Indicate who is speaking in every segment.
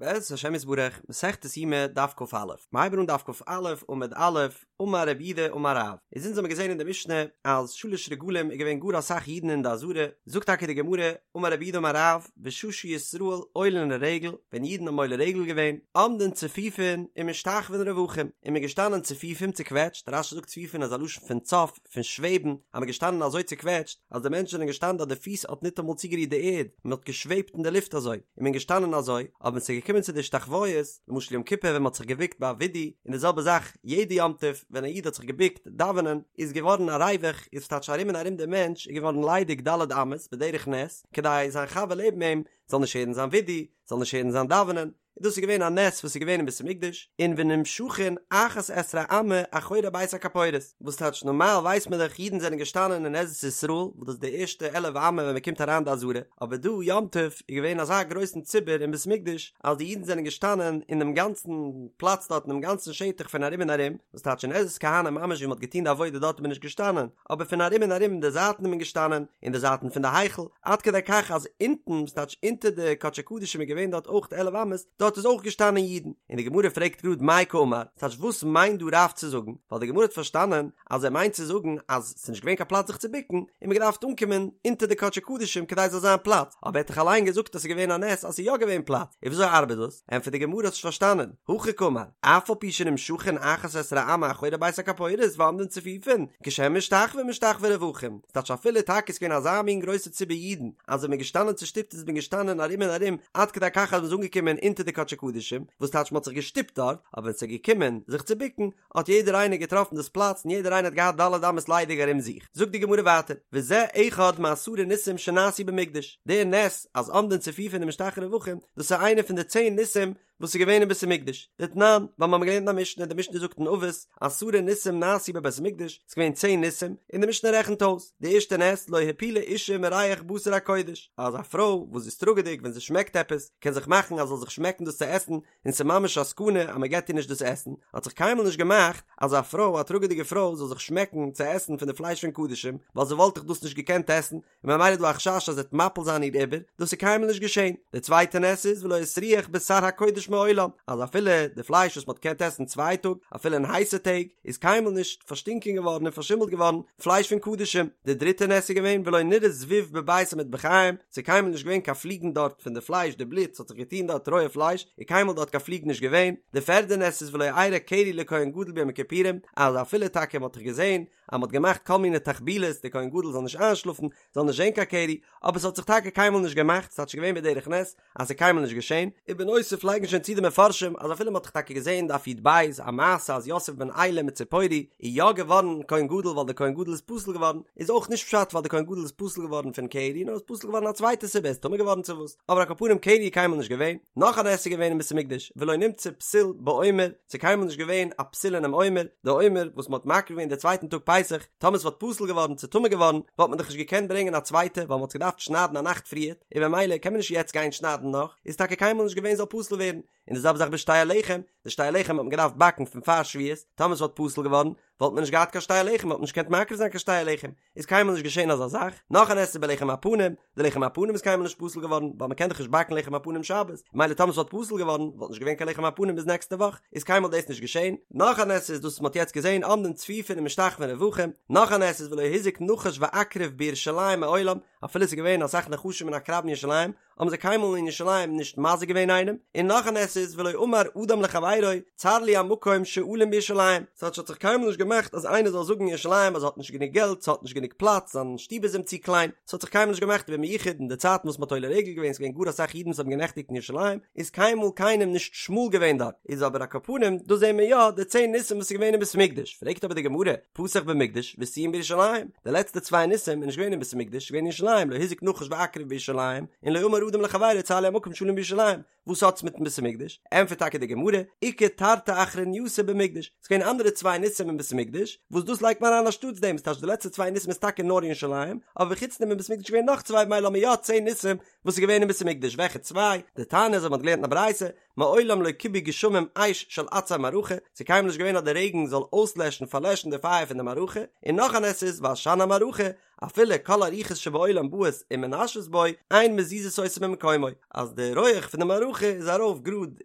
Speaker 1: בעזרת השם יתברך, מסכת יומא דף כ"א, מ'הייבן אן דף כ"א עמוד א', אמר רב יהודה אמר רב, איז אונז האמיר געזען אין די משנה אז שלש רגלים איז געווען גאר אסאך אידן אין די עזרה, זאגט טאקע די גמרא, אמר רב יהודה אמר רב, בשעה שישראל עולין לרגל, ווען אידן האבן עולה רגל געווען, עומדין צפופין ומשתחוין רווחים, איז מען געשטאנען צפופים צוקוועטשט, רש"י זאגט צפופין איז א לשון פון צף, פון שוועבן, אז מ'איז געשטאנען אזוי צוקוועטשט, אז די מענטשן זענען געשטאנען אז די פיס האט ניטאמאל צוגערירט די ערד, מען האט געשוועבט אין די לופט אזוי, און מען געשטאנען אזוי, אבער ווען ס'איז געקומען צו די השתחוואות, למשל יום כיפור ווען מען האט זיך געבוקט ביי וידוי, און די זעלבע זאך יעדע יום טוב ווען א איד האט זיך געבוקט דאווענען, איז געווארן א ריווח, איז טייטש ארום און ארום די מענטש איז געווארן ליידיג ד' אמות בדרך נס, כדי זיין חבר לעבן אים זאל נישט הערן זיין וידוי, זאל נישט הערן זיין דאווענען, און דאס איז געווען א נס וואס איז געווען אין בית המקדש, און ונמשכין אחת עשרה אמה אחורי בית הכפורת, וואס טייטש נארמאל ווייסט מען דאך אידן זענען געשטאנען אין עזרת ישראל וואס דאס איז די ערשטע עלף אמה ווען מען קומט אריין די עזרה, אבער דא יום טוב איז געווען אזא גרויסן ציבור אין בית המקדש אז די אידן זענען געשטאנען אין דעם גאנצן פלאץ דארט אינעם גאנצן שטח פון ארום און ארום, וואס טייטש אין עזרת כהנים ממש ווי מען האט געטון די עבודה דארט איז מען נישט געשטאנען, אבער פון ארום און ארום אין די זייטן איז מען געשטאנען, אין די זייטן פון די היכל, עד כדי כך אז אונטן, ס'טייטש אונטער די קדשי קדשים איז געווען דארט אויך עלף אמות, דארט איז אויך געשטאנען אידן, און די גמרא פרעגט גראד מאי קאמר, ס'טייטש וואס מיינט דא רב צו זאגן, ווייל די גמרא האט פארשטאנען אז ער מיינט צו זאגן אז ס'איז נישט געווען קיין פלאץ זיך צו בוקן, און מ'האט געדארפט אנקומען אונטער די קדשי קדשים כדי ס'זאל זיין פלאץ, אבער ער האט דאך אליין געזאגט אז ס'איז געווען א נס אז ס'איז יא געווען פלאץ, און וויאזוי ארבעט דאס? ענטפערט די גמרא האסט נישט פארשטאנען, הכי קאמר, אף על פי שנמשכין אחת עשרה אמה אחורי בית הכפורת ועומדין צפופין, כשהם משתחווין משתחווין רווחים, ס'טייטש אפילו טאקע איז געווען אזא מין גרויסע ציבור אידן, אז ווען מ'איז געשטאנען צושטופט איז מען געשטאנען ארום און ארום עד כדי כך אז מ'איז אנגעקומען אונטער די קדשי קדשים, וואס טייטש מ'האט זיך געשטופט דארט, אבער ווען ס'איז געקומען זיך צו בוקן, האט יעדער איינער געטראפן דאס פלאץ און יעדער איינער האט געהאט ד' אמות ליידיג ארום זיך. זאגט די גמרא ווייטער, וזה אחד מעשרה ניסים שנעשו במקדש, דער נס אז עומדין צפופין ומשתחווין רווחים, דאס איז איינער פון די צען ניסים וואס איז געווען אין בית המקדש, דתנן, ווייל מיר האבן געלערנט אין א משנה, די משנה זאגט אין אבות, עשרה ניסים נעשו בבית המקדש, ס'איז געווען צען ניסים, און די משנה רעכנט אויס, די ערשטע נס, לא הפילה אישה מריח בשר הקודש, אז א פרוי וואס איז טראגעדיג ווען זי שמעקט עפעס, קען זיך מאכן אז זאל זיך שמעקן דאס צו עסן, און ס'איז ממש א סכנה אז מ'געט איר נישט דאס עסן, האט זיך קיינמאל נישט געמאכט אז א פרוי, א טראגעדיגע פרוי, זאל זיך שמעקן צו עסן פון די פלייש פון קדשים, ווייל זי וואלט דאך דאס נישט געקענט עסן, און ממילא איז דא א חשש אז זי וועט מפיל זיין איר עובר, דאס איז קיינמאל נישט געשען. די צווייטע נס איז ולא הסריח בשר הקודש מעולם, אז אפילו די פלייש וואס מ'האט געקענט עסן צוויי טאג, אפילו אין הייסע טעג, איז קיינמאל נישט פארשטינקען געווארן און פארשימלט געווארן פלייש פון קדשים. די דריטע נס איז געווען ולא נראה זבוב בבית המטבחיים, ס'איז קיינמאל נישט געווען קיין פליגן דארט פון די פלייש, די בלוט, ס'האט זיך געטון דארט רויע פלייש, איז קיינמאל דארט קיין פליג נישט געווען. די פערדע נס איז ולא אירע קרי לכהן גדול ביום הכיפורים, אז אפילו טאקע מ'האט דאך געזען אז מ'האט געמאכט כל מיני תחבולות די כהן גדול זאל נישט איינשלאפן, זאל נישט זען קיין קרי, אבער ס'האט זיך טאקע קיינמאל נישט געמאכט, ס'טייטש געווען בדרך נס אז ס'איז קיינמאל נישט געשען, ובנוסף לייגן שוין צו די מפרשים אז אפילו מ'האט דאך טאקע געזען דף י"ב א מעשה אז יוסף בן עילם מציפורי איז יא געווארן כהן גדול ווייל די כהן גדול איז פסול געווארן, איז אויך נישט פשט ווייל די כהן גדול איז פסול געווארן פון קרי נאר איז פסול געווארן א צווייטע סיבה ער איז טמא געווארן צו וואס, אבער על כל פנים קרי איז קיינמאל נישט געווען, נאך א נס איז געווען אין בית המקדש ולא נמצא פסול בעומר, ס'איז קיינמאל נישט געווען א פסול אינעם עומר, די עומר וואס מ'האט מקריב געווען די צווייטן טאג פסח, טאמער ס'וואלט פסול געווארן צו טמא געווארן, וואלט מען דאך נישט געקענט ברענגען א צווייטע ווייל מ'האט עס געדארפט שניידן א נאכט פריערט, און במילא קען מען נישט יעצט גיין שניידן נאך, איז טאקע קיינמאל נישט געווען זאל פסול ווערן, און די זעלבע זאך בשתי הלחם, די שתי הלחם האט מען געדארפט באקן פון פאר שבועות, טאמער ס'וואלט פסול געווארן, וואלט מען נישט געהאט קיין שתי הלחם, וואלט מען נישט געקענט מקריב זיין קיין שתי הלחם, איז קיינמאל נישט געשען אזא זאך, נאך א נס איז בלחם הפנים, די לחם הפנים איז קיינמאל נישט פסול געווארן, ווייל מען קען דאך נישט באקן לחם הפנים שבת, ממילא טאמער ס'וואלט פסול געווארן, וואלט נישט געווען קיין לחם הפנים ביז נעקסטע וואך, איז קיינמאל דאס נישט געשען, נאך א נס איז דאס וואס מען האט יעצט געזען עומדין צפופין ומשתחווין רווחים, נאך א נס איז ולא הזיק נחש ועקרב בירושלים מעולם, אפילו ס'איז געווען אסאך נחשים און עקרבים אין ירושלים, האבן זיי קיינמאל אין ירושלים נישט מזיק געווען איינעם, און נאך א נס איז ולא אמר אדם לחבירו צר לי המקום שאלין בירושלים, ס'האט האט זיך קיינמאל נישט געמאכט אז איינער זאל זאגן אין ירושלים אז ער האט נישט גענוג געלט, ס'האט נישט גענוג פלאץ, זיין שטוב איז אים צו קליין, ס'האט זיך קיינמאל נישט געמאכט ובמיוחד אין די צייטן וואס מ'האט עולה רגל געווען, ס'געווען גאר אסאך אידן וואס האבן גענעכטיגט אין ירושלים, איז קיינמאל קיינעם נישט שמאל געווען דארט, איז אבער על כל פנים דא זעהן מיר יא די צען ניסים וואס איז געווען אין בית המקדש, פרעגט אבער די גמרא, פתח במקדש וסיים בירושלים, די לעצטע צוויי ניסים איז נישט געווען אין בית המקדש, געווען אין ירושלים, לא הזיק נחש ועקרב בירושלים, און לא אמר אדם לחבירו צר לי המקום שאלין בירושלים, וואס האט עס מיטן בית המקדש? ענטפערט טאקע די גמרא, איכא תרתי אחרנייתא במקדש, ס'איז געווען אנדערע צוויי ניסים אין בית המקדש, וואס דאס לייגט מען אריין אנשטאטס דעם, ס'טייטש די לעצטע צוויי ניסים איז טאקע נאר אין ירושלים, אבער חוץ דעם אין בית המקדש איז געווען נאך צוויי במילא האבן מיר יא צען ניסים וואס איז געווען אין בית המקדש, וועלכע צוויי? דתניא אזוי מ'האט געלערנט אין א ברייתא, מעולם לא כיבו גשמים אש של עצי מערכה, ס'איז קיינמאל נישט געווען אז די רעגן זאל אויסלעשן פארלעשן די פייער פון די מערכה, און נאך א נס איז ועשן המערכה, אפילו כל הרוחות שבעולם באות ומנשבות בו, אין מזיזות אותו ממקומו, אז די רויעך פון די מערכה איז ארויף גראד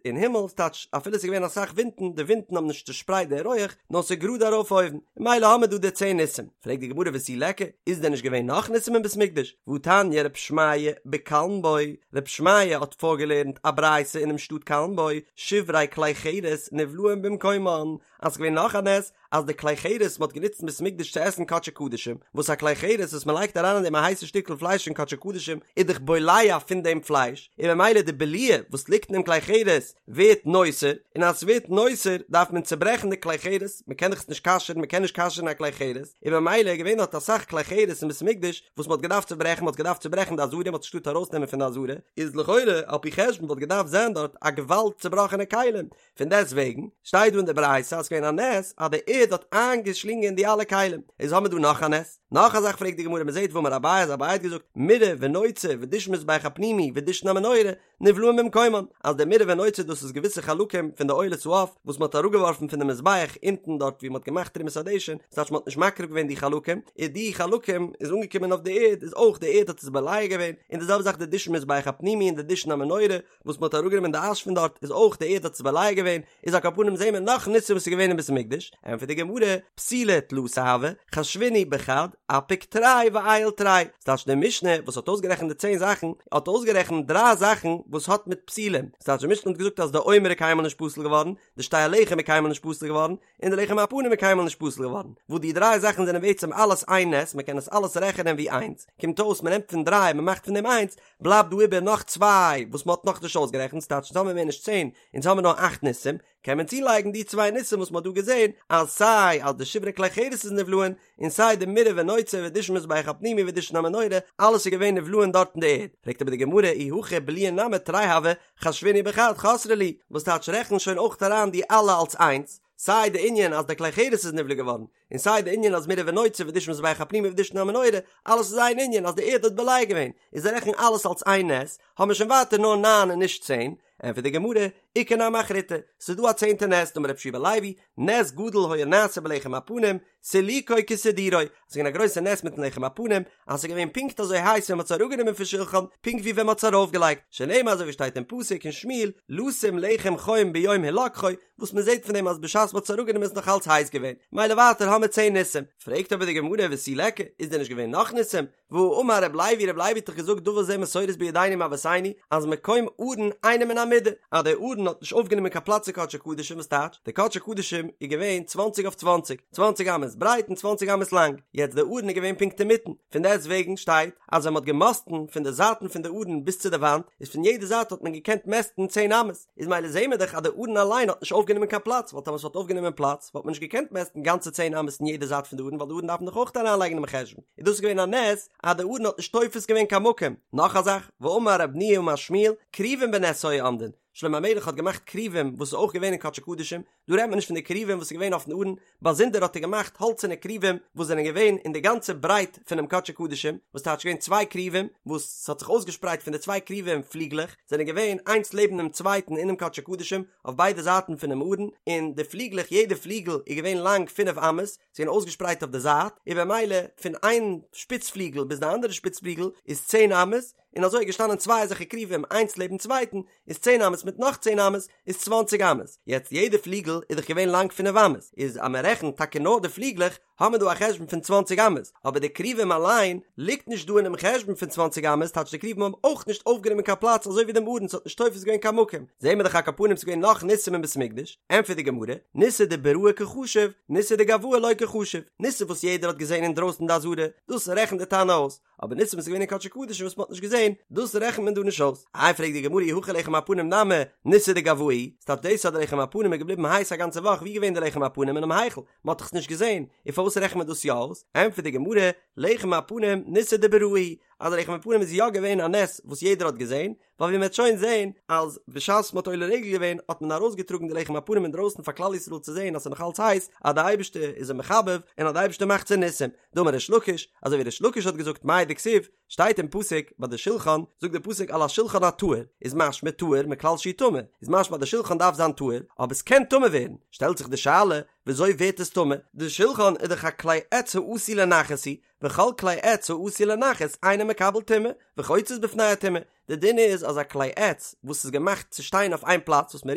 Speaker 1: אין הימל, ס'טייטש אפילו ס'איז געווען אסאך ווינטן, די ווינטן האבן נישט צושפרייט די רויעך, נאר ס'איז גראד ארויף אויבן, ממילא האמיר דא די צען ניסים. פרעגט די גמרא ותו ליכא, איז דען נישט געווען נאך ניסים אין בית מקדש? והתניא רב שמעיה בקלנבו, רב שמעיה האט פארגעלערנט א ברייתא אינעם שטאט קלנבו, שברי כלי חרס נבלעים במקומן, אז ס'איז געווען נאך א נס, אז די כלי חרס מ'האט גענוצט אין בית מקדש צו עסן קדשי קדשים, וואס א כלי חרס וואס מ'לייגט אריין אין דעם א הייסע שטיקל פלייש פון קדשי קדשים איז דאך בולע פון דעם פלייש, און ממילא די בליעה וואס ליגט אין דעם כלי חרס ווערט נותר, און אז ס'ווערט נותר דארף מען צוברעכן די כלי חרס, מ'קען דאך עס נישט כשר'ן, מ'קען נישט כשר'ן א כלי חרס, און ממילא איז געווען דארט אסאך כלי חרס אין בית מקדש וואס מ'האט געדארפט צוברעכן, מ'האט געדארפט צוברעכן די עזרה, מ'האט נישט געטארט ארויסנעמען פון די עזרה, איז לכאורה על פי חשבון וואלט געדארפט זיין דארט א געוואלד צובראכענע כלים, פון דעסט וועגן שטייט דא אין די ברייתא אז ס'געווען א נס אז די ערד האט איינגעשלינגען די אלע כלים, איז האמיר דא נאך א נס? נאך א זאך פרעגט די גמרא מ'זעט והאמר אביי אז אביי האט געזאגט מוראה ונוצה ודישון מזבח הפנימי ודישון המנורה נבלעים במקומן אז די מוראה ונוצה דאס איז געוויסע חלקים פון די עולת העוף וואס מ'האט אראפגעווארפן פון די מזבח אונטן דארט ווי מ'האט געמאכט תרומת הדשן ס'טייטש מ'האט נישט מקריב געווען די חלקים איז די חלקים איז אנגעקומען אויף די ערד איז אויך די ערד האט עס בולע געווען און די זעלבע זאך די דישון מזבח הפנימי און די דישון המנורה וואס מ'האט אראפגענומען די אש פון דארט איז אויך די ערד האט עס בולע געווען, איז על כל פנים זעהן מיר נאך ניסים וואס איז געווען אין בית המקדש, ענטפערט די גמרא, פסולי תלתא הוו, חשבינהו בחד, אפיק תרי ועייל תרי, ס'טייטש די משנה וואס האט אויסגערעכנט די צען זאכן, האט אויסגערעכנט דריי זאכן וואס האט מיט פסולים, ס'טייטש די משנה האט געזאגט אז די עומר איז קיינמאל נישט פסול געווארן, די שתי הלחם איז קיינמאל נישט פסול געווארן, און די לחם הפנים איז קיינמאל נישט פסול געווארן, וואס די דריי זאכן זענען בעצם אלעס איין נס, מ'קען עס אלעס רעכענען ווי איינס, קומט אויס מ'נעמט פון דריי מ'מאכט פון דעם איינס, בלייבט דא איבער נאך צוויי וואס מ'האט נאכנישט אויסגערעכנט, ס'טייטש אונז האמיר מער נישט צען, אונז האמיר נאר אכט ניסים, קען מען צולייגן די צוויי ניסים וואס מ'האט דא געזען, אז סיי אז די שברי כלי חרס איז נבלעין, און סיי די מוראה ונוצה ודישון מזבח הפנימי ודישון המנורה, אלעס איז געווען נבלעין דארט אין די ערד. פרעגט אבער די גמרא אי הכי בליעין נמי תרי הוו, חשבינהו בחד חסרי להו, וואס טייטש רעכן שוין אויך אריין די אלע אלס איינס, סיי די ענין אז די כלי חרס איז נבלע געווארן, און סיי די ענין אז מוראה ונוצה ודישון מזבח הפנימי ודישון המנורה, אלעס איז איין ענין אז די ערד האט בולע געווען, איז זיי רעכן אלעס אלס איין נס, האבן מיר שוין ווייטער נאר ניין און נישט צען, ענטפערט די גמרא, איכא נמי אחריתי, ס'איז דא א צענטע נס, דאמר רבי יהושע בן לוי, נס גדול היה נעשה בלחם הפנים, סילוקו כסידורו, ס'איז געווען א גרויסע נס מיטן לחם הפנים, אז ס'איז געווען פונקט אזוי הייס ווען מ'האט עס אראפגענומען פון שולחן, פונקט ווי ווען מ'האט עס ארויפגעלייגט, שנאמר אזוי ווי שטייט אין פסוק אין שמואל, לשום לחם חום ביום הלקחו, וואס מ'זעט פון דעם אז בשעת מ'האט עס אראפגענומען איז נאך אלץ הייס געווען, מילא ווייטער האמיר צען ניסים. פרעגט אבער די גמרא ותו ליכא, איז דען נישט געווען נאך ניסים? והאמר רב לוי, רב לוי האט דאך געזאגט דבר זה מסורת בידינו מאבותינו, אז מקום ארון אינו מן המידה, אז דער ארון האט נישט אויפגענומען קיין פלאץ אין קדשי קדשים וואס טייטש, די קדשי קדשים איז געווען צוואנציג אויף צוואנציג, צוואנציג אמות ברייט און צוואנציג אמות לאנג, יעצט דער ארון איז געווען פונקט אינמיטן, פון דעסט וועגן שטייט אז ווען מען האט געמאסטן פון די זייטן פון די ארון ביז צו די וואנט, איז פון יעדע זייט האט מען געקענט מעסטן צען אמות, איז מילא זעהן מיר דאך אז די ארון אליין האט נישט אויפגענומען קיין פלאץ, ווייל טאמער עס וואלט אויפגענומען פלאץ וואלט מען נישט געקענט מעסטן גאנצע צען אמות אין יעדע זייט פון די ארון ווייל די ארון דארף מען דאך אויך אריינלייגן אינעם חשבון, איז דאס געווען א נס אז די ארון האט נישט תופס געווען קיין מקום. נאך א זאך, ואמר רב ניהו אמר שמואל, כרובים בנס היו עומדין, שלמה המלך האט געמאכט כרובים וואס איז אויך געווען אין קדשי קדשים, דא רעדט מען נישט פון די כרובים וואס איז געווען אויפן ארון, באזונדער האט ער געמאכט האלצערנע כרובים וואס זענען געווען אין די גאנצע ברייט פונעם קדשי קדשים, וואס טייטש געווען צוויי כרובים וואס ס'האט זיך אויסגעשפרייט פון די צוויי כרובים פליגלעך, זענען געווען איינס לעבן דעם צווייטן אינעם קדשי קדשים אויף ביידע זייטן פונעם ארון, און די פליגלעך יעדע פליגל איז געווען לאנג פינף אמות, זיי זענען אויסגעשפרייט אויף די זייט, און במילא פון איין שפיץ פליגל ביז די אנדערע שפיץ פליגל איז צען אמות, און אזוי איז געשטאנען צוויי אזעלכע כרובים איינס לעבן צווייטן, איז צען אמות מיט נאך צען אמות איז צוואנציג אמות, יעצט יעדע פליגל איז דאך געווען לאנג פינף אמות, איז אז מען רעכנט טאקע נאר די פליגלעך האט מען דא א חשבון פון צוואנציג אמות, אבער די כרובים אליין ליגט נישט דא אינעם חשבון פון צוואנציג אמות, טייטש די כרובים האבן אויך נישט אויפגענומען קיין פלאץ אזוי ווי דעם ארון ס'האט נישט תופס געווען קיין מקום, זעהן מיר דאך על כל פנים ס'איז געווען נאך ניסים אין בית המקדש, ענטפערט די גמרא, ניסא דבראי קא חשיב, ניסא דגואי לא קא חשיב, ניסים וואס יעדער האט געזען אינדרויסן די עזרה, דאס רעכנט די תנא אויס, אבער ניסים וואס איז געווען אין קדשי קדשים וואס מ'האט נישט געזען, דאס רעכנט מען דא נישט אויס. איי פרעגט די גמרא אי הכי לחם הפנים נמי ניסא דגואי, ס'טייטש דאס אז די לחם הפנים איז געבליבן הייס א גאנצע וואך, ווי געווען די לחם הפנים אינעם היכל? מ'האט דאך עס נישט געזען, און פארוואס רעכנט מען דאס יא אויס? ענטפערט די גמרא, לחם הפנים ניסא דבראי. אז די לחם הפנים איז יא געווען א נס וואס יעדער האט געזען, ווייל ווי מען וועט שוין זען אז בשעת מען האט עולה רגל געווען האט מען ארויסגעטראגן די לחם הפנים אינדרויסן פאר כלל ישראל צו זען אז ס'איז נאך אלץ הייס, אז די אייבערשטער איז זיי מחבב און אז די אייבערשטער מאכט צו ניסים. דאמר ריש לקיש, אזוי ווי ריש לקיש האט געזאגט מאי דכתיב, שטייט אין פסוק ביי די שולחן, זאגט די פסוק על השולחן הטהור, איז משמע טהור מכלל שהוא טמא, איז משמע אז די שולחן דארף זיין טהור, אבער ס'קען טמא ווערן, שטעלט זיך די שאלה, וויאזוי ווערט עס טמא? די שולחן איז דאך א כלי עץ העשוי לנחת הוא, וכל כלי עץ העשוי לנחת אינו מקבל טומאה, וחוצץ בפני הטומאה, די דין איז אז א כלי עץ וואס איז געמאכט צו שטיין אויף איין פלאץ וואס מען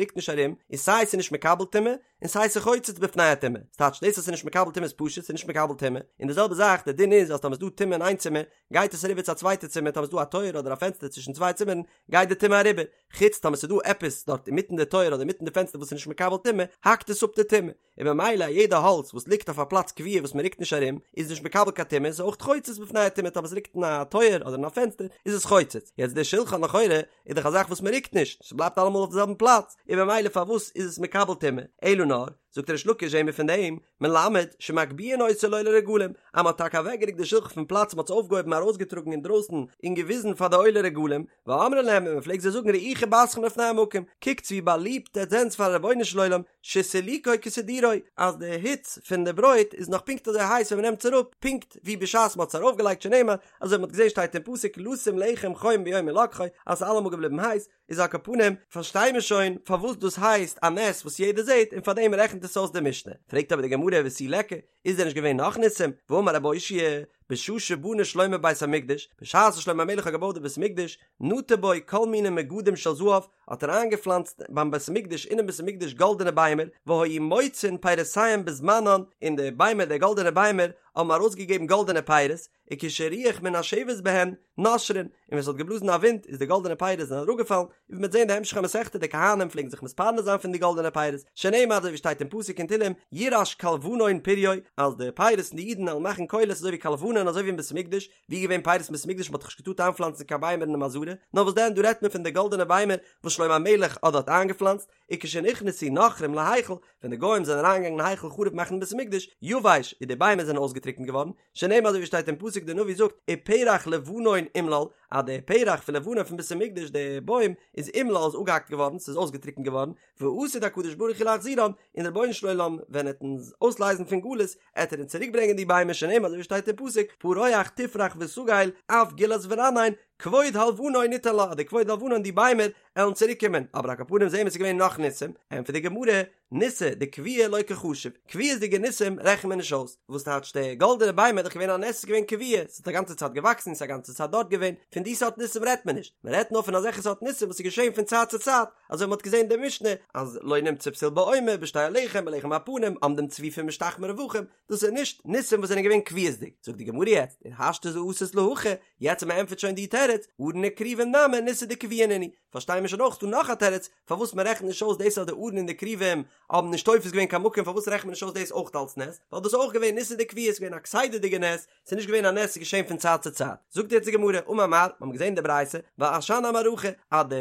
Speaker 1: רוקט נישט ארום, איז סיי ס'איז נישט מקבל טומאה, און סיי ס'חוצץ בפני הטומאה, ס'טייטש דאס אז ס'איז נישט מקבל טומאה איז פשוט ס'איז נישט מקבל טומאה, און די זעלבע זאך די דין איז אז טאמער ס'איז דא טומאה אין איין צימער גייט עס אריבער צו א צווייטע צימער טאמער ס'איז דא א טויער אדער א פענסטער צווישן צוויי צימערן גייט די טומאה אריבער, חוץ טאמער ס'איז דא עפעס דארט אינמיטן די טויער אדער אינמיטן די פענסטער וואס איז נישט מקבל טומאה האקט עס אפ די טומאה. און ממילא א יעדע האלץ וואס ליגט אויף א פלאץ קבוע וואס מען רוקט נישט ארום איז נישט מקבל קיין טומאה איז אויך חוצץ בפני הטומאה טאמער עס ליגט אין א טויער אדער אין א פענסטער איז עס חוצץ יעצט די שולחן לכאורה איז דאך א זאך וואס מען רוקט נישט ס'בלייבט אלעמאל אויף די זעלבן פלאץ און ממילא פארוואס איז עס מקבל טומאה אלא נאר זאגט ריש לקיש זעהן מיר פון דעם מלמד שמגביהין אותו לעולי רגלים אז מען האט טאקע אוועקגערוקט די שולחן פון פלאץ מען האט עס אויפגעהויבן ארויסגעטראגן אינדרויסן און געוויזן פאר די עולי רגלים ואומרים להם און מען פלעגט זיי זאגן ראו חיבתכם לפני המקום, קוקטס ווי באליבט עטס זענטס פארן רבונו של עולם, שסילוקו כסידורו, אז די היץ פון די ברויט איז נאך פונקט אזוי הייס ווען מען נעמט עס אראפ, פונקט ווי בשעת מען האט עס ארויפגעלייגט שנאמר, אזוי ווי מען האט געזען שטייט אין פסוק לשום לחם חום ביום הלקחו, אז ס'איז אלעמאל געבליבן הייס, איז על כל פנים, פארשטיי מיר שוין פארוואס דאס הייסט א נס וואס יעדער זעט און פארדעם רעכנט עס אויס די משנה. פרעגט אבער די גמרא ותו ליכא, איז דען נישט געווען נאך ניסים? והאמר רבי אושעיא, בשעה שבנה שלמה בית המקדש, בשעת וואס שלמה המלך האט געבויט די בית המקדש, נטע בו כל מיני מגדים של זהב, האט ער איינגעפלאנצט ביים בית המקדש אינעם בית המקדש גאלדענע ביימער, והיו מוציאין פירותיהם בזמנן, און די ביימער די גאלדענע ביימער האבן ארויסגעגעבן גאלדענע פירות, וכשרוח מנשבת בהן נושרין, און ווען ס'האט געבלאזן א ווינט איז די גאלדענע פירות זענען אראפגעפאלן, און ווי מ'וועט זען די המשך המסכתא די כהנים פלעגן זיך מתפרנס זיין פון די גאלדענע פירות, שנאמר אזוי ווי שטייט אין פסוק אין תהלים ירעש כלבנון פריו, אז די פירות פון די אידן וועלן מאכן קולות אזוי ווי כלבנון אזוי ווי אין בית המקדש, ווי איז געווען פירות אין בית המקדש מ'האט דאך נישט געטארט איינפלאנצן קיין ביימער אינעם עזרה, נאר וואס דען דא רעדט מען פון די גאלדענע ביימער וואס שלמה המלך האט דארט איינגעפלאנצט, וכשנכנסו נכרים להיכל, ווען די גוים זענען אריינגעגאנגען אין היכל חרוב מאכן בית המקדש, יבש, און די ביימער זענען אויסגעטריקנט געווארן, שנאמר אזוי ווי שטייט אין פסוק די נביא זאגט ופרח לבנון אומלל, אז די פרח פון לבנון פון בית המקדש די בוים איז אומלל איז אפגעהאקט געווארן ס'איז אויסגעטריקנט געווארן, ועתיד הקדוש ברוך הוא להחזירן, און דער רבונו של עולם ווען ער וועט אונז אויסלייזן פון גלות עט ער אונז צוריק ברענגען די ביימער שנאמר אזוי ווי שטייט אין פסוק פרוח תפרח ותגל אף גלת ורנן כבוד הלבנון ניתן לה אז די כבוד הלבנון די ביימער עלן צוריק קומען, אבער על כל פנים זעהן מיר ס'איז געווען נאך ניסים, ענטפערט די גמרא, ניסי דקביעי לא קא חשיב, קביעות'דיגע ניסים רעכנט מען נישט אויס, וואס טייטש די גאלדענע ביימער איז דאך געווען א נס ס'איז געווען קביע, ס'האט א גאנצע צייט געוואקסן ס'איז א גאנצע צייט דארט געווען, פון די סארט ניסים רעדט מען נישט, מען רעדט נאר פון אזעלכע סארט ניסים וואס איז געשען פון צייט צו צייט, אזוי ווי מ'האט געזען אין די משנה אז לא נמצא פתיל בעומר בשתי הלחם בלחם הפנים עומדים צפופים משתחוים רווחים, דאס איז נישט ניסים וואס זענען געווען קביעות'דיג, זאגט די גמרא יעצט, און השתא דאתית להכי, יעצט אז מ'ענטפערט שוין די תירוץ, ארון וכרובים נמי ניסי דקביעי נינהו, פארשטיי מיר שוין אויך דא נאך א תירוץ פארוואס מען רעכנט נישט אויס דאס אז די ארון און די כרובים האבן נישט תופס געווען קיין מקום פארוואס רעכנט מען נישט אויס דאס אויך אלס נס ווייל דאס איז אויך געווען ניסי דקביעי ס'איז געווען א כסדר'דיגע נס ס'איז נישט געווען א נס ס'איז געשען פון צייט צו צייט זאגט יעצט די גמרא אמר מר מיר האבן געזען די ברייתא ועשן המערכה אז די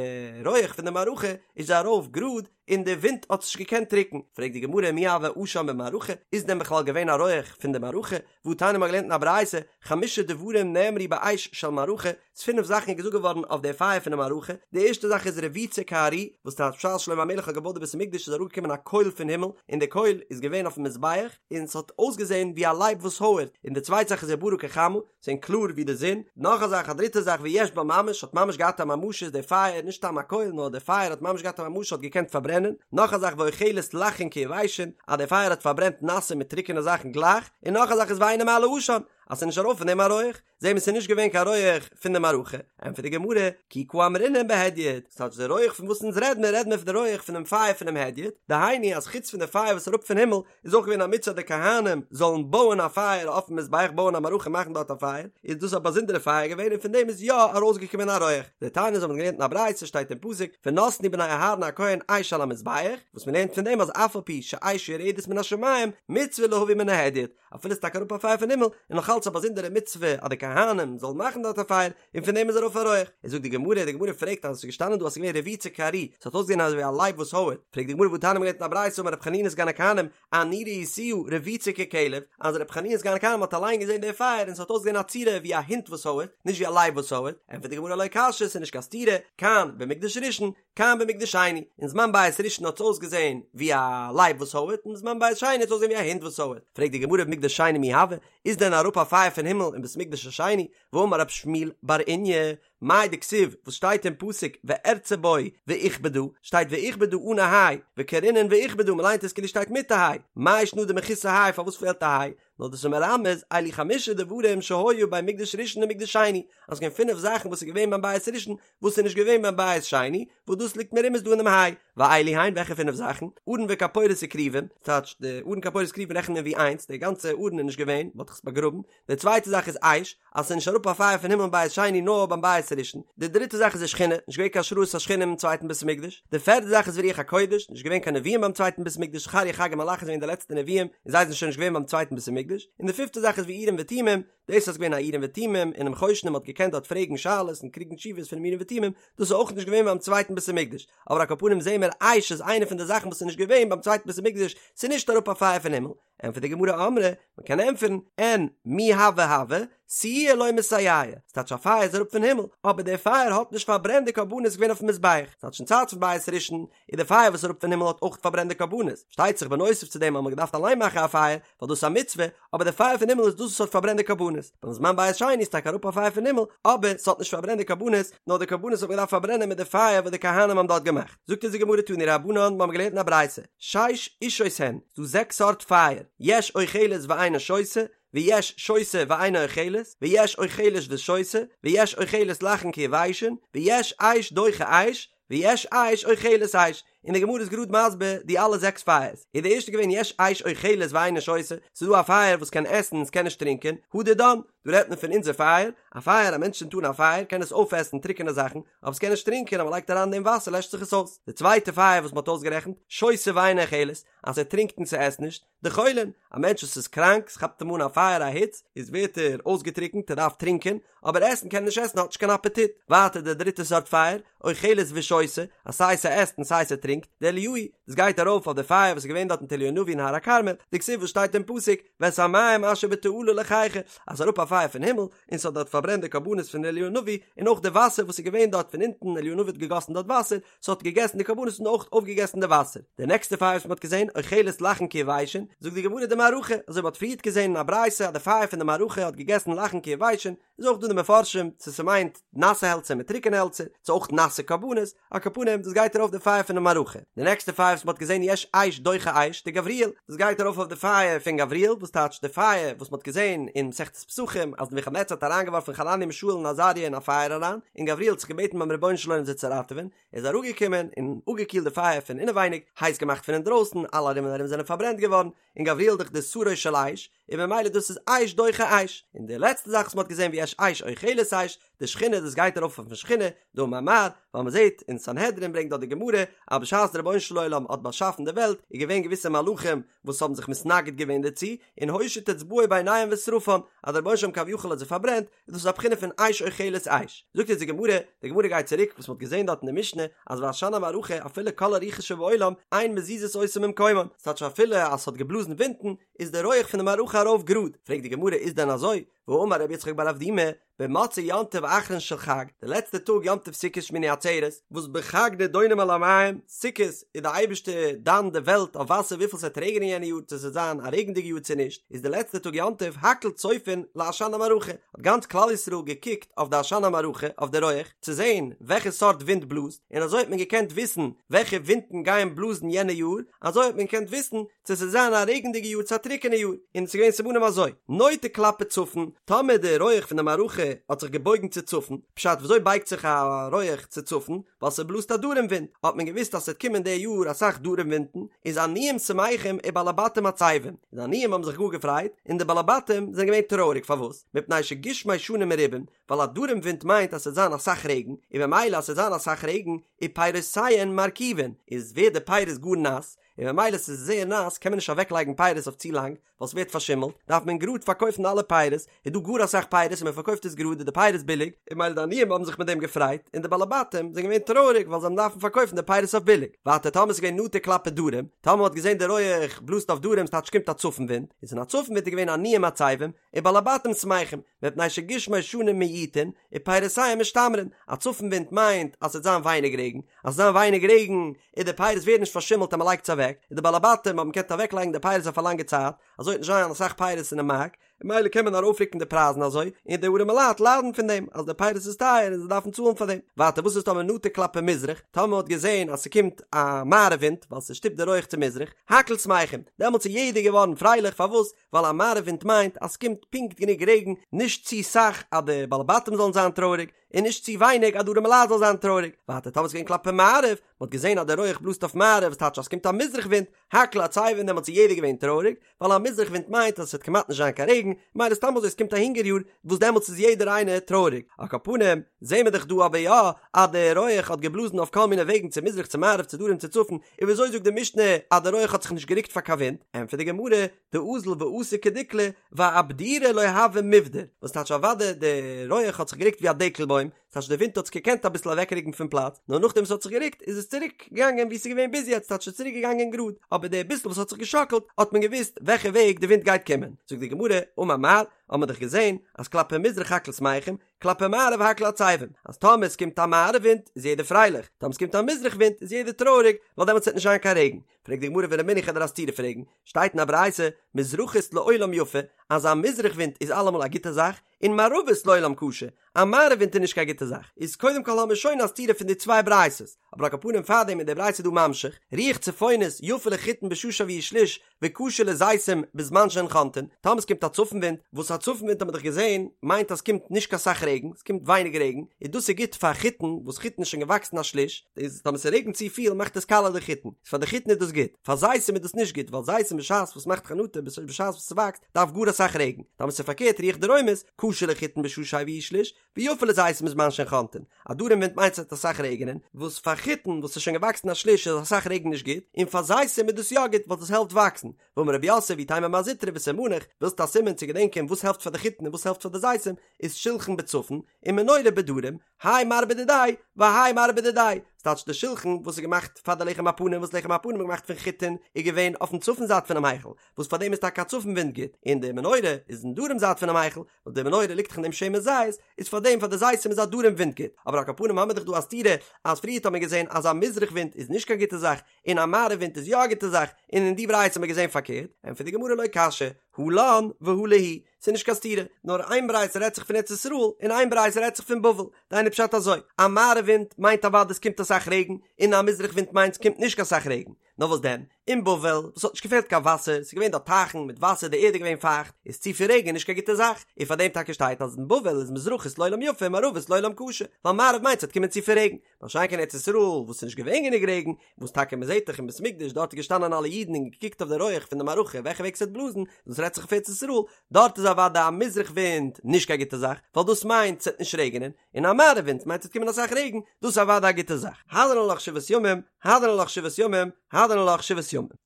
Speaker 1: רויעך פון די מערכה איז ארויף גראד און די ווינט האט עס נישט געקענט רוקן פרעגט די גמרא מי הוה עשן במערכה איז דען בכלל געווען א רויעך פון די מערכה והתניא מ'האט געלערנט אין א ברייתא, חמשה דברים נאמרו באש של מערכה, ס'איז פינף זאכן איז געזאגט געווארן אויף די פייער פון די מערכה, די ערשטע זאך איז רבוצה כארי, וואס טייטש בשעת שלמה המלך האט געבויט די בית המקדש איז אראפגעקומען א קויל פון הימל, און די קויל איז געווען אויפן מזבח, און ס'האט אויסגעזען ווי א לייב וואס הויערט, און די צווייטע זאך איז וברא כחמה, ס'געווען קלאר ווי די זון, נאך א זאך א דריטע זאך ויש בה ממש, האט ממש געהאט א ממשות די פייער, נישט סתם א קויל נאר די פייער האט ממש געהאט א ממשות האט געקענט פארברענען, נאך א זאך ואוכלת לחין כיבשין, אז די פייער האט פארברענט נאסע מיט טרוקענע זאכן גלייך, און נאך א זאך איז ואינו מעלה עשן, אז ס'איז נישט ארויף פון דעם א רויעך, זעהן מיר ס'איז נישט געווען קיין רויעך פון די מערכה, ענטפערט די גמרא, כי קא אמרינן בהדיוט, ס'טייטש די רויעך פון וואס אונז רעד מיר, רעד מיר פון די רויעך פונעם פייער פונעם הדיוט, דהיינו אז חוץ פון די פייער וואס איז אראפ פון הימל, איז אויך געווען א מצוה די כהנים זאלן בויען א פייער אויפן מזבח בויען א מערכה מאכן דארט א פייער, איז דאס א באזונדערע פייער געווען און פון דעם איז יא ארויסגעקומען א רויעך, דתניא אזוי האט מען געלערנט אין א ברייתא שטייט אין פסוק ונתנו בני אהרן הכהן אש על המזבח, וואס מען לערנט פון דעם אז אף על פי שאש יורדת מן השמים מצוה להביא מן ההדיוט, אפילו ס'איז טאקע אראפ א פייער פון הימל, איז נאך אלץ א באזונדערע מצוה אז די כהנים זאלן מאכן דארט א פייער, און פון דעם איז ארויף א רויעך. איז זאגט די גמרא, די גמרא פרעגט אז עס איז געשטאנען דא אז עס איז געווען רבוצה כארי, עס האט אויסגעזען אזוי ווי א לייב וואס הויערט, פרעגט די גמרא והתניא מ'האט געלערנט אין א ברייתא אמר רבי חנינא סגן הכהנים, אני ראיתיה רבוצה ככלב, אז רבי חנינא סגן הכהנים האט אליין געזען די פייער און עס האט אויסגעזען א צורה ווי א הונט וואס הויערט, נישט ווי א לייב וואס הויערט, ענטפערט די גמרא לא קשיא, עס איז נישט קיין סתירה, כאן במקדש ראשון, כאן במקדש שני, אין זמן בית ראשון האט עס אויסגעזען ווי א לייב וואס הויערט, און בזמן בית שני האט עס אויסגעזען ווי א הונט וואס הויערט, פרעגט די גמרא במקדש שני מי הוה, איז דען אראפ א פייער פון הימל אין בית מקדש השני, והאמר רב שמואל בר איניא, מאי דכתיב, וואס שטייט אין פסוק וארצה בו ואכבדה, שטייט ואכבדה אן א היי, וקרינן ואכבדה, מ'ליינט עס כאילו שטייט מיט א היי, מאי שנא דמחוסר היי, פארוואס פעלט א היי? נאר דאס איז מרמז אלו חמשה דברים שהיו בין מקדש ראשון למקדש שני, אז ס'געווען פינף זאכן וואס איז געווען ביים בית ראשון וואס איז נישט געווען ביים בית שני, וואס דאס ליגט מרומז דא אינעם היי, ואלו הן וועלכע פינף זאכן? ארון וכפורת וכרובים, ס'טייטש די ארון כפורת כרובים רעכנט מען ווי איינס, די גאנצע ארון איז נישט געווען, מ'האט דאך עס באגראבן, די צווייטע זאך איז אש, אז ס'איז נישט אראפ א פייער פון הימל אין בית שני נאר ביים בית ראשון, די דריטע זאך איז ושכינה, נישט געווען קיין השראת השכינה אינעם צווייטן בית המקדש, די פערטע זאך איז ורוח הקודש, נישט געווען קיין נביאים ביים צווייטן בית המקדש, זכריה חגי מלאכי זענען געווען די לעצטע נביאים און זיי זענען שוין נישט געווען ביים צווייטן בית המקדש, און די פיפטע זאך איז ואורים ותומים, דאס אז געווען א אורים ותומים אינעם חושן און מ'האט געקענט דארט פרעגן שאלות און קריגן תשובות פונעם אורים ותומים, דאס איז אויך נישט געווען ביים צווייטן בית המקדש, אבער על כל פנים זעהן מיר אש איז איינע פון די זאכן וואס איז נישט געווען ביים צווייטן בית המקדש, ס'איז נישט אראפ א פייער פון הימל, ענטפערט די גמרא אמרי, מען קען ענטפערן, אין מי הוה הוה, סיועי לא מסייע, ס'טייטש א פייער איז אראפ פון הימל, אבער דער פייער האט נישט פארברענט די קרבנות געווען אויפן מזבח, ס'טייטש אין צייט פון בית ראשון איז די פייער וואס איז אראפ פון הימל האט אויך פארברענט די קרבנות, שטייט זיך בנוסף צו דעם האט מען געדארפט אליין מאכן א פייער, ווייל דאס איז א מצוה, אבער די פייער פון הימל איז דאס וואס האט פארברענט די קרבנות, ביים זמן בית שני איז טאקע אראפ א פייער פון הימל, אבער ס'האט נישט פארברענט די קרבנות, נאר די קרבנות האט מען געדארפט פארברענען מיט די פייער וואס די כהנים האבן דארט געמאכט. זאגט אונז די גמרא תנו רבנן, מיר האבן געלערנט אין א ברייתא, שש אשות הן, ס'דא זעקס סארט פייער, יש אוכלת ואינה שותה, ויש שותה ואינה אוכלת, ויש אוכלת ושותה, ויש אוכלת לחים כיבשין, ויש אש דוחה אש, ויש אש אוכלת אש, און די גמרא איז גראד מסביר די אלע זעקס פייערס, איז די ערשטע געווען יש אש אוכלת ואינה שותה, ס'איז דא א פייער וואס קען עסן און ס'קען נישט טרינקען, הא דידן, דא רעדט מען פון אונזער פייער, א פייער, א מענטש צינדט אן א פייער קען עס אויפעסן טרוקענע זאכן, אבער ס'קען נישט טרינקען, אז מ'לייגט אריין אין דעם וואסער לעשט זיך עס אויס. די צווייטע פייער וואס מ'האט אויסגערעכנט, שותה ואינה אוכלת, אז ער טרינקט און ס'עסט נישט, דחולין, א מענטש וואס איז קראנק, ס'כאפט אים אן א פייער א היץ, איז ווערט ער אויסגעטריקנט, ער דארף טרינקען, אבער עסן קען ער נישט עסן, האט נישט קיין אפעטיט. ווייטער די דריטע סארט פייער, אוכלת ושותה, אז סיי ס'עסט און סיי ס'טרינקט, דאליהו, דאס גייט ארויף אויף די פייער וואס איז געווען דארט מיט אליהו הנביא אין הר הכרמל, דכתיב וואס שטייט אין פסוק, ואת המים אשר בתעלה לחכה, אז ס'אראפ א פייער פון הימל, און ס'האט דארט פארברענט די קרבנות פון אליהו הנביא, און אויך די וואסער וואס איז געווען דארט פון אונטן, אליהו הנביא האט געגאסן דארט וואסער, ס'האט געגעסן די קרבנות און אויך אויפגעגעסן די וואסער. די נעקסטע פייער וואס מ'האט געזען, אוכלת לחים כיבשין, זאגט די גמרא דמערכה, אזוי מ'האט פריערט געזען אין א ברייתא אז די פייער פון די מערכה האט געגעסן לחים כיבשין, איז אויך דא די מפרשים צו ס'מיינט נאסע העלצער מיט טרוקענע העלצער, צו אויך נאסע קרבנות, על כל פנים דאס גייט ארויף די פייער פון די מערכה. די נעקסטע פייער וואס מ'האט געזען יש אש דוחה אש, דגבריאל, דאס גייט ארויף אויף די פייער פון גבריאל, וואס טייטש די פייער וואס מ'האט געזען אין מסכת פסחים אז נבוכדנצר האט אריינגעווארפן חנניה מישאל און עזריה אין א פייער אריין, און גבריאל האט זיך געבעטן ביים רבונו של עולם זיי צו ראטעווען, ער איז אראפגעקומען און אפגעקילט די פייער פון אינעווייניג, הייס געמאכט פון אינדרויסן, אלע ארום און ארום זענען פארברענט געווארן, און גבריאל דאך די שרו של אש, און ממילא דאס איז אש דוחה אש, און די לעצטע זאך וואס מען האט געזען ויש אש אוכלת אש, דשכינה דאס גייט ארויף אויפן שכינה, דאמר מר, ווייל מען זעט אין סנהדרין ברענגט דארט די גמרא, אז בשעת דער רבונו של עולם האט באשאפן די וועלט, איז געווען געוויסע מלאכים וואס האבן זיך מתנגד געווען דערצו, און הושיט אצבעו ביניהם ושרפן, אז דער רבונו של עולם כביכול האט זיי פארברענט, איז דאס א בחינה פון אש אוכלת אש. זאגט אונז די גמרא, די גמרא גייט צוריק וואס מען האט געזען דארט אין די משנה, אז ועשן המערכה אפילו כל הרוחות שבעולם אין מזיזות אותו ממקומן, ס'טייטש אפילו אז ס'האט געבלאזן ווינטן, איז די רויעך פון די מערכה ארויף גראד, פרעגט די גמרא איז דען אזוי, והאמר רבי יצחק בר אבדימי, במוצאי יום טוב אחרון של חג, די לעצטע טאג יום טוב סוכות שמיני עצרת, וואס בחג נידונים על המים, סוכות איז די אייבערשטער דן די וועלט אויף וואסער וויפיל ס'וועט רעגענען יענע יאר צו ס'וועט זיין א רעגנדיגע יאר צו נישט, איז די לעצטע טאג יום טוב הכל צופין לעשן המערכה, האט גאנץ כלל ישראל געקוקט אויף די עשן המערכה, אויף די רויעך, צו זען וועלכע סארט ווינט בלאזט, און אזוי האט מען געקענט וויסן וועלכע ווינטן גייען בלאזן יענע יאר, אזוי האט מען געקענט וויסן צו ס'זאל זיין א רעגנדיגע יאר צו א טרוקענע יאר, און ס'איז געווען סימנים אזוי, נוטה כלפי צפון, טאמער די רויעך פון די מערכה האט זיך געבויגן צו צפון, פשט וויאזוי בייגט זיך א רויעך צו צפון, ווייל ס'בלאזט א דרום ווינט, האט מען געוואוסט אז ס'וועט קומען די יאר אסאך דרום ווינטן, איז עניים שמחים ובעלי בתים עצבים, די עניים האבן זיך גאר געפרייט, און די בעלי בתים זענען געווען טרויעריג, פארוואס? מפני שגשמי שנה מרובים, ווייל א דרום ווינט מיינט אז ס'וועט זיין אסאך רעגן, און ממילא אז ס'וועט זיין אסאך רעגן, ופירותיהן מרקיבין, איז ווערט די פירות גאר נאס, און ממילא ס'איז זייער נאס קען מען נישט אוועק לייגן פירות אויף צו לאנג ווייל ס'ווערט פארשימלט. פארשימלט, דארף מען גראד פארקויפן אלע פירות, איז דא גאר אסאך פירות און מען פארקויפט עס גראד איז די פירות ביליג, און מילא די עניים האבן זיך מיט דעם געפרייט, און די בעלי בתים זענען געווען טרויעריג ווייל זיי האבן דארפן פארקויפן די פירות אויף ביליג. ווייטער טאמער ס'איז געווען נטה כלפי דרום, טאמער מ'האט געזען די רויעך בלאזט אויף דרום ס'טייטש קומט א צפון ווינט, איז אין א צפון ווינט איז געווען עניים עצבים, ובעלי בתים שמחים, מפני שגשמי שנים מועטין, ופירותיהם משתמרין, א צפון ווינט מיינט אז ס'וועט זיין ווייניג רעגן, אז ס'וועט זיין ווייניג רעגן און די פירות ווערן נישט פארשימלט אז מ'לייגט עס אוועק, און די בעלי בתים האבן געקענט אוועקלייגן די פירות אויף א לאנגע צייט, אזוי וועט נישט זיין אסאך פירות אינעם מארק, ממילא קען מען ארויפרוקן די פרייזן אזוי, און די ארימע לייט ליידן פון דעם אז די פירות איז טייער און זיי דארפן צאלן פאר דעם. ווייטער וואס איז טאמער נטה כלפי מזרח, טאמער מ'האט געזען אז ס'קומט א מערב ווינט ווייל ס'שטופט די רויעך צו מזרח, הכל שמחים, דעמאלטס איז יעדער געווארן פרייליך, פארוואס? ווייל א מערב ווינט מיינט אז ס'קומט פונקט גענוג רעגן, נישט צו סאך אז די בעלי בתים זאלן זיין טרויעריג, און נישט צו ווייניג אז די ארימע לייט זאלן זיין טרויעריג. ווייטער טאמער ס'איז געווען כלפי מערב, מ'האט געזען אז די רויעך בלאזט אויף מערב, וואס טייטש אז ס'קומט א מזרח ווינט, הכל עצבין דעמאלטס איז יעדער געווען טרויעריג, ווייל א מזרח ווינט מיינט אז עס וועט כמעט נישט זיין קיין רעגן, מילא סתם אזוי עס קומט א הונגער יאר וואס דעמאלטס איז יעדער איינער טרויעריג, על כל פנים זעהן מיר דאך דא אבער יא אז די רויעך האט געבלאזן אויף כל מיני וועגן צו מזרח צו מערב צו דרום צו צפון, און וויאזוי זאגט די משנה אז די רויעך האט זיך נישט גערוקט פאר קיין ווינט? ענטפערט די גמרא, דאזיל ואתי כדיקלא ואבדורי לא הוה מיבדר, וואס טייטש אוודאי די רויעך האט זיך גערוקט ווי א דקל בוים, ס'טייטש די ווינט האט עס געקענט אביסל אוועקרוקן פון פלאץ, נאר נאכדעם ס'האט זיך גערוקט איז עס צוריק געגאנגען ווי ס'איז געווען ביז יעצט, ס'טייטש ס'איז צוריק געגאנגען גראד, אבער די ביסל וואס האט זיך געשאקלט האט מען געוואוסט וועלכע וועג די ווינט גייט קומען. זאגט די גמרא, אמר מר, האט מען דאך געזען אז כלפי מזרח הכל שמחים, כלפי מערב הכל עצבין, אז טאמער ס'קומט א מערב ווינט איז יעדער פרייליך, טאמער ס'קומט א מזרח ווינט איז יעדער טרויעריג, ווייל דעמאלטס וועט נישט זיין קיין רעגן. פרעגט די גמרא ורמינהו כ'וועל דיר א סתירה פרעגן, שטייט אין א ברייתא, מזרחית לעולם יפה, אז א מזרח ווינט איז אלעמאל א גוטע זאך, און מערבית לעולם קשה, א מערב ווינט איז נישט קיין גוטע זאך, איז קודם כל האמיר שוין א סתירה פון די צוויי ברייתות, אבער על כל פנים פארדעם איז די ברייתא דא ממשיך, רוח צפונית יפה לחיטין בשעה שהביאו שליש וקשה לזיתים בזמן שהן חונטין, טאמער ס'קומט א צפון ווינט, וואס א צפון ווינט האט מען דאך געזען מיינט אז ס'קומט נישט קיין סאך רעגן, ס'קומט ווייניג רעגן, איז דאס איז גוט פאר חיטין, וואס חיטין איז שוין געוואקסן א שליש, איז טאמער ס'רעגנט צופיל מאכט עס קאלע די חיטין, איז פאר די חיטין איז דאס גוט, פאר זיתים איז דאס נישט גוט, ווייל זיתים בשעת וואס מאכט חנטה בשעת וואס ס'וואקסט דארף גאר אסאך רעגן, טאמער ס'איז פארקערט רוח דרומית, קשה לחיטין בשעה שהביאו שליש, ויפה לזיתים בזמן שהן חונטין. א דרום ווינט מיינט ס'וועט אסאך רעגענען, וואס פאר חיטין וואס איז שוין געוואקסן א שליש איז אסאך רעגן נישט גוט, און פאר זיתים איז דאס יא גוט ווייל דאס העלפט וואקסן. ואמר רב יוסף ואיתימא מר זוטרא וסימניך, ווילסט א סימן צו געדענקען וואס העלפט פאר די חיטין און וואס העלפט פאר די זיתים, איז שולחן בצפון, און מנורה בדרום, האי מר בדידיה, והאי מר בדידיה, ס'טייטש די שולחן וואס איז געמאכט פאר די לחם הפנים וואס לחם הפנים איז געמאכט פון חיטין איז געווען אויפן צפון זייט פונעם היכל, וואס פאר דעם איז טאקע א צפון ווינט גוט, און די מנורה איז אין דרום זייט פונעם היכל, וואס די מנורה ליגט דאך אין דעם שמן זית, איז פאר דעם פאר די זיתים איז א דרום ווינט גוט, אבער על כל פנים האמיר דאך דא א סתירה אז פריערט האט מען געזען אז א מזרח ווינט איז נישט קיין גוטע זאך, און א מערב ווינט איז יא א גוטע זאך, און אין די ברייתא האט מען געזען פארקערט, ענטפערט די גמרא לא קשיא, הא לן והא להו, ס'איז נישט קיין סתירה, נאר איין ברייתא רעדט זיך פון ארץ ישראל, און איין ברייתא רעדט זיך פון בבל, דהיינו פשט אזוי, א מערב ווינט מיינט אוודאי ס'קומט אסאך רעגן, און א מזרח ווינט מיינט ס'קומט נישט קיין סאך רעגן, נאר וואס דען, אין בבל, וואס האט נישט געפעלט קיין וואסער, ס'איז געווען דארט טייכן מיט וואסער, די ערד איז געווען פייכט, איז צופיל רעגן נישט קיין גוטע זאך, און פאר דעם טאקע שטייט אז אין בבל איז מזרחית לעולם יפה מערבית לעולם קשה, ווייל מערב מיינט ס'וועט קומען צופיל רעגן, מה שאין כן ארץ ישראל וואס איז נישט געווען גענוג רעגן, וואס טאקע מ'זעט דאך אין בית המקדש דארט איז געשטאנען אלע אידן און געקוקט אויף די רויעך פון די מערכה וועלכע וועג ס'וועט בלאזן, דאס רעדט זיך אויף ארץ ישראל, דארט איז אוודאי א מזרח ווינט נישט קיין גוטע זאך, ווייל דאס מיינט ס'וועט נישט רעגענען, און א מערב ווינט מיינט ס'וועט קומען אסאך רעגן, דאס איז אוודאי א גוטע זאך. הדרן עלך שבעת ימים, הדרן עלך שבעת ימים, הדרן עלך שבעת ימים.